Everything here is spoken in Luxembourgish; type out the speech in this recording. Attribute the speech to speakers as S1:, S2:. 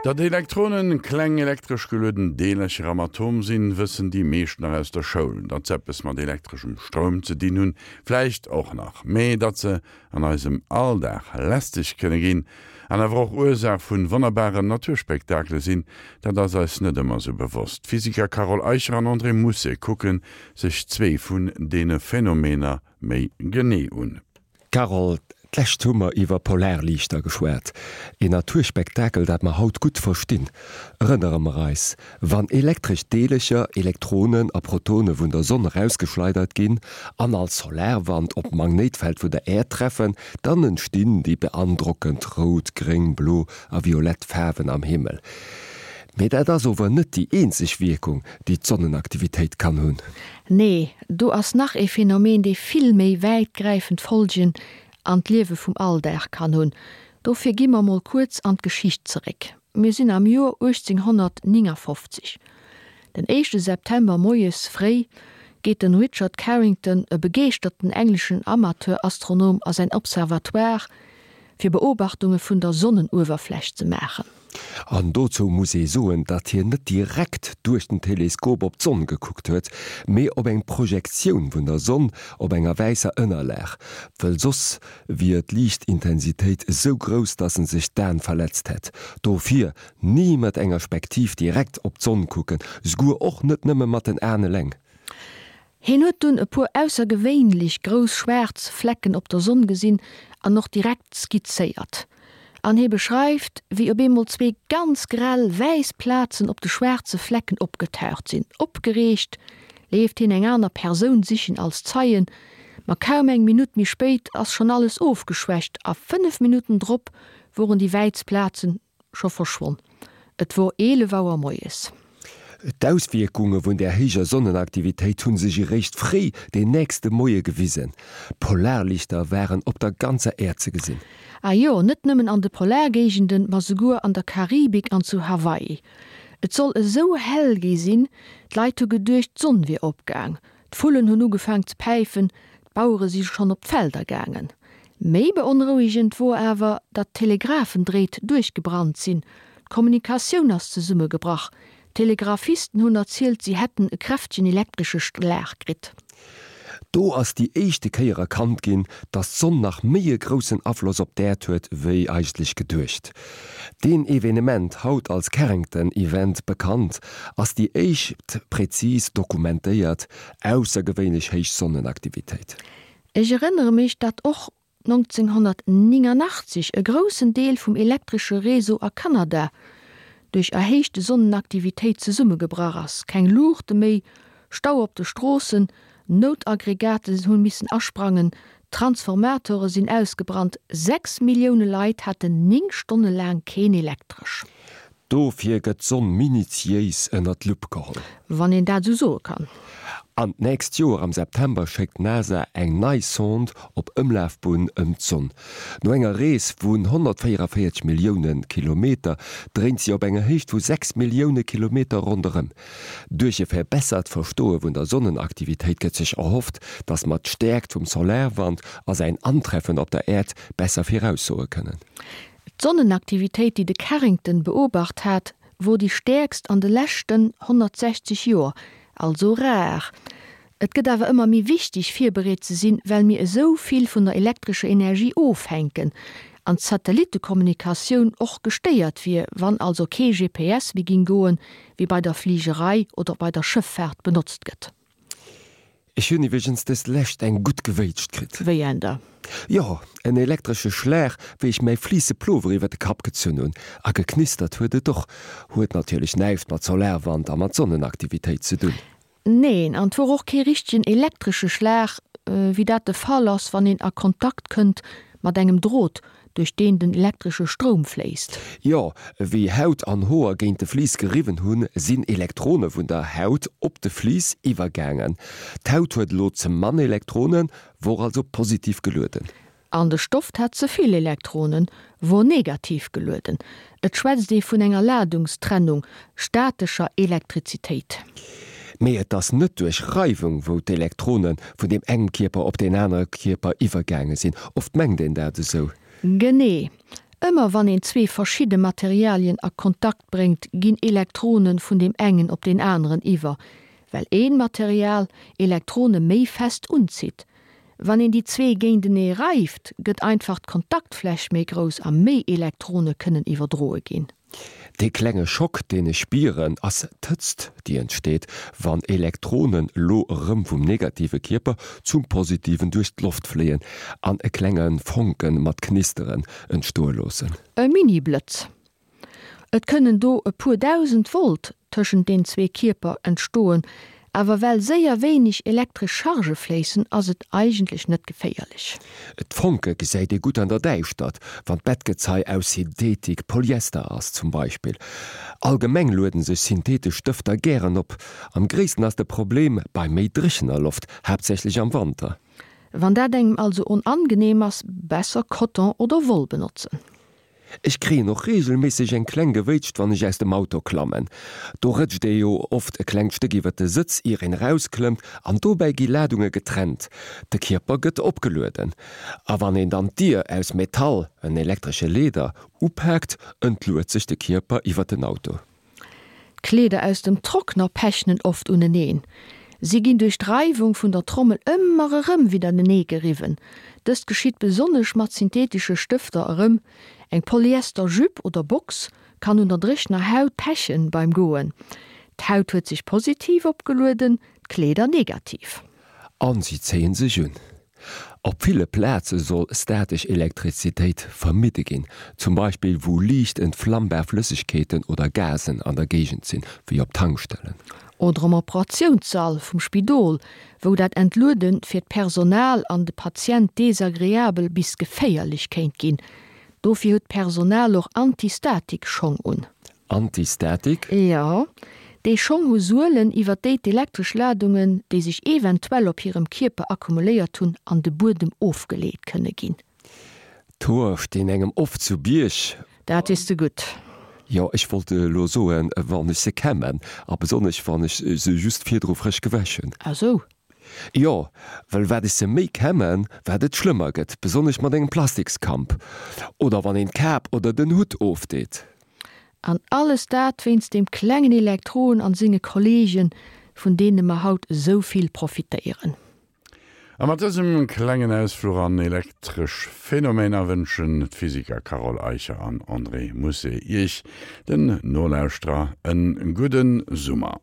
S1: Datt Elektronen kleng elektresch gelueden Deelercher am Atom sinn, wëssen déi meescht nach aus der Schoul. Datt se eppes mat elektreschem Stroum ze dinn hunn, vläicht och nach. Mee datt se an eisem Alldag lästeg kënne ginn an awer och Ursaach vun wonnerbaren Naturspektakele sinn, dat ass eis net ëmmer sou bewosst. D'Physiker Carole Eicher an André Mousset kucke sech zwee vun deene Phänomener méi genee un.
S2: Carole, d'lescht hu mer iwwer Polarliichter geschwat, een Naturspektakel, dat mer haut gutt verstinn. Erënnere mer eis, Wann elektresch Deelecher, Elektronen a Protone vun der Sonn erausgeschleidert ginn an als Solarwand op d'Magnéitfeld vun der Äerd treffen, dann entstinn déi beandrockend rout, gréng, blo a violett Faarwen am Himmel. Mee dat ass ower net déi eenzeg Wierkung, déi d'Sonnenaktivitéit kann hunn.
S3: Nee, do ass nach ee Phänomen, dee vill méi wäitgräifend Folgen an d'Liewe vum Alldag kann hunn. Dofir gi mer mol kuerz an d'Geschicht zeréck. Mir sinn am Joer 1859. Den éischte September moies fréi geet den Richard Carrington, e begeeschterten engleschen Amateurastronom, a säin Observatoire, fir Beobachtunge vun der Sonnenuewerfläch ze maachen.
S2: An dozou muss ee soen, datt hien net direkt duerch den Teleskop op d'Sonn gekuckt huet, mee op eng Projektioun vun der Sonn op enger wäisser Ënnerlag, wëll soss wier d'Liichtintensitéit esou grouss, datt en sech d'Aen verletzt hätt. Dofir ni mat enger Spektiv direkt op d'Sonn kucken, esouguer och net nëmme mat den Aen eleng.
S3: Hien huet dunn e puer aussergewéinlech grouss schwaarz Flecken op der Sonn gesinn an och direkt skizzéiert. An hie beschreift, wéi op eemol zwee ganz grell wäiss Plazen op de schwaarze Flecken opgetaucht sinn. Opgereegt leeft hien eng aner Persoun sichen als Zeien, ma kaum eng Minutt méi spéit ass schonn alles ofgeschwächt a 5 Minutten drop woren déi wäiss Plazen Scho verschwonn. Et wor 11 Auer moies.
S2: D'Auswierkunge vun där héijer Sonnenaktivitéit hu sech eréischt fréi den nächste Moie gewisen. Polarlichter waren op der ganzer Äerd ze gesinn.
S3: Ah jo, net nëmmen an de Polargéigenden, ma souguer an der Karibik an zu Hawaii. Et soll esou hell gi sinn, d'Leit hu geduecht, d'Sonn wier opgaang. D'Vullen hunn ugefaang ze päifen, d'Bauere si schonn op d'Felder gaangen. Méi beonrouegend wor awer, datt d'Telegraphendréit duerchgebrannt sinn, d'Kommunikatioun ass zesummegebrach. D'Telegraphisten hunn erzielt, si hätten e kräftegen elektresche Schlag kritt.
S2: Do ass déi éischte Kéier erkannt ginn, datt d'Sonn nach méi e groussen Afloss op d'Äerd huet, wéi eigentlech geduecht. Deen Evenement, haut als Carrington Event bekannt, ass déi éischt präzis dokumentéiert aussergewéinlech héich Sonnenaktivitéit.
S3: Ech erënnere mech, datt och 1989 e groussen Deel vum elektresche Réseau a Kanada duerch erhéichte Sonnenaktivitéit zesummegebrach ass, keng Luuchte méi, Stau op de Stroossen, Noutaggregaten hunn missen asprangen, Transformatore sinn ausgebrannt, 6 Millioune Leit haten 9 Stonne laang keen Elektresch.
S2: Dofir gëtt d'Sonn minutiéis ënner d'Lupp geholl.
S3: Wann een dat esou soe kann.
S2: An d'nächst Joer am September schéckt d'NASA eng nei Sonde op Ëmlafbunn ëm d'Sonn. No enger Rees vun 144 Millioune Kilometer dréint si op enger Héicht vu 6 Millioune Kilometer ronderëm. Duerch e verbessert Verstoe vun der Sonnenaktivitéit gëtt sech erhofft, datt mer d'Stäerkt vum Solarwand a säin Antreffen op der Äerd besser viraussoe kënnen.
S3: D'Sonnenaktivitéit, déi de Carrington beobacht hat, wor déi stäerkst an de leschten 160 Joer, also rar. Et gëtt awer ëmmer méi wichteg, virbereet ze sinn, well mir esou vill vun der elektrescher Energie ofhänken an d'Satellittekommunikatioun och gestéiert wier, wann also kee GPS méi ging goen, wéi bei der Fligerei oder bei der Schëffaart benotzt gëtt.
S2: Ech hunn iwweregens dës Lescht eng gutt gewéitscht kritt.
S3: Wéi en da?
S2: Jo, en elektresche Schlag, wéi ech mäi fliisse Plover iwwer de Kapp gezunn hunn. A geknistert huet et och. Huet natierlech näischt mat Solarwand a mat Sonnenaktivitéit ze dunn.
S3: Neen, an 't wor och kee richtegen elektresche Schlag, wéi dat de Fall ass, wann een a Kontakt kënnt mat engem Drot, duerch deen den elektresche Stroum fléisst.
S2: Jo, wéi Haut an Hoer géint de Vlies geriwwen hunn, sinn Elektrone vun der Haut op de Vlies iwwergaangen. D'Haut huet elo ze mann Elektronen, wor also positiv gelueden.
S3: An de Stoft hat ze vill Elektronen, wor negativ gelueden. Et schwätzt ee vun enger Ladungstrennung, statescher Elektrizitéit.
S2: Mee et ass net duerch Reiwung, wou d'Elektrone vun deem engem Kierper op deen anere Kierper iwwergaange sinn. Oft mengt een dat esou.
S3: Genee. Ëmmer wann een zwee verschidde Materialien a Kontakt bréngt, ginn Elektrone vun deem engen op deen aneren iwwer, well een Material Elektrone méi fest unzitt. Wann een déi zwee géintenee reift, gëtt einfach d'Kontaktfläch méi grouss a méi Elektrone kënnen iwwerdroe ginn.
S2: Dee klenge Schock, deen ech spieren, ass d'Hëtzt, déi entsteet, wann Elektronen lo erëm vum negative Kierper zum positiven duerch d'Loft fléien an e klenge Fonke mat Knisteren entstoe loossen.
S3: E Mini-Blëtz. Et kënnen do e puer 1.000 Volt tëschent den zwee Kierper entstoen, awer well séier wéineg elektresch Chargë fléissen, ass et eigentlech net geféierlech.
S2: D'Fonke gesäit ee gutt an der Däischtert, wann d'Bettgezei aus Synthetik, Polyester, ass zum Beispill. Allgemeng lueden sech synthetesch Stëfter gären op. Am gréissten ass de Problem bei méi dréchener Loft, haaptsächlech am Wanter.
S3: Wann dat engem also onangenehm ass, besser Coton oder Woll benotzen.
S2: Ech kréien och reegelméisseg eng kleng Gewéitscht wann ech aus dem Auto klammen. Do rëtscht ee jo oft e klengt Stéck iwwer de Sëtz ier een erausklëmmt an dobäi gi Ladunge getrennt. De Kierper gëtt opgelueden. A wann een dann d'Dier aus Metall, en elektresche Leeder, upaakt, entluet sech de Kierper iwwer den Auto.
S3: D'Kleeder aus dem Trockner pechnen oft uneneen. Si ginn duerch d'Reiwung vun der Trommel ëmmer erëm widdertenee geriwwen. Dëst geschitt besonnesch mat synthetesche Stëfter erëm. Eng Polyester Jupe oder Box kann un der dréchener Haut pechen beim Goen. D'Haut huet sech positiv opgelueden, d'Kleeder negativ.
S2: An si zéien sech un. Op ville Plaze soll statesch Elektrizitéit vermidde ginn, zum Beispill wou liicht entflammbar Flëssegkeeten oder Gasen an der Géigend sinn, wéi op Tankstellen.
S3: Oder am Operatiounssall vum Spidol, wou dat Entluede fir d'Personal an de Patient desagreabel bis geféierlech kéint ginn. Dofir huet d'Personal och Antistatik-Schong un.
S2: Antistatik?
S3: Jo, déi Schong hu Suelen, iwwer déi d'elektresch Ladungen, déi sech eventuell op hirem Kierper akkumuléiert hunn, an de Buedem ofgeleet kënne ginn.
S2: D'Hoer stinn engem oft zu Bierg.
S3: Dat weess de gutt.
S2: Jo, ech wollt elo soen, wann ech se kämmen, a besonnesch wann ech se just virdru frësch gewäsch hunn.
S3: Ah sou.
S2: Jo, well wat ech se méi kämmen, wat et schlëmmer gëtt, besonnesch mat engem Plastikskamp oder wann een d'Kap oder den Hutt ofdeet.
S3: An alles dat wéinst deem klengen Elektron an senge Kollegen, vun deene mer haut esou vill profitéieren.
S1: A mat dësem klengen Ausfluch an elektresch Phänomener wënschen d'Physiker Carole Eicher an André Mousset Iech, den Nolauschterer, en gudde Summer.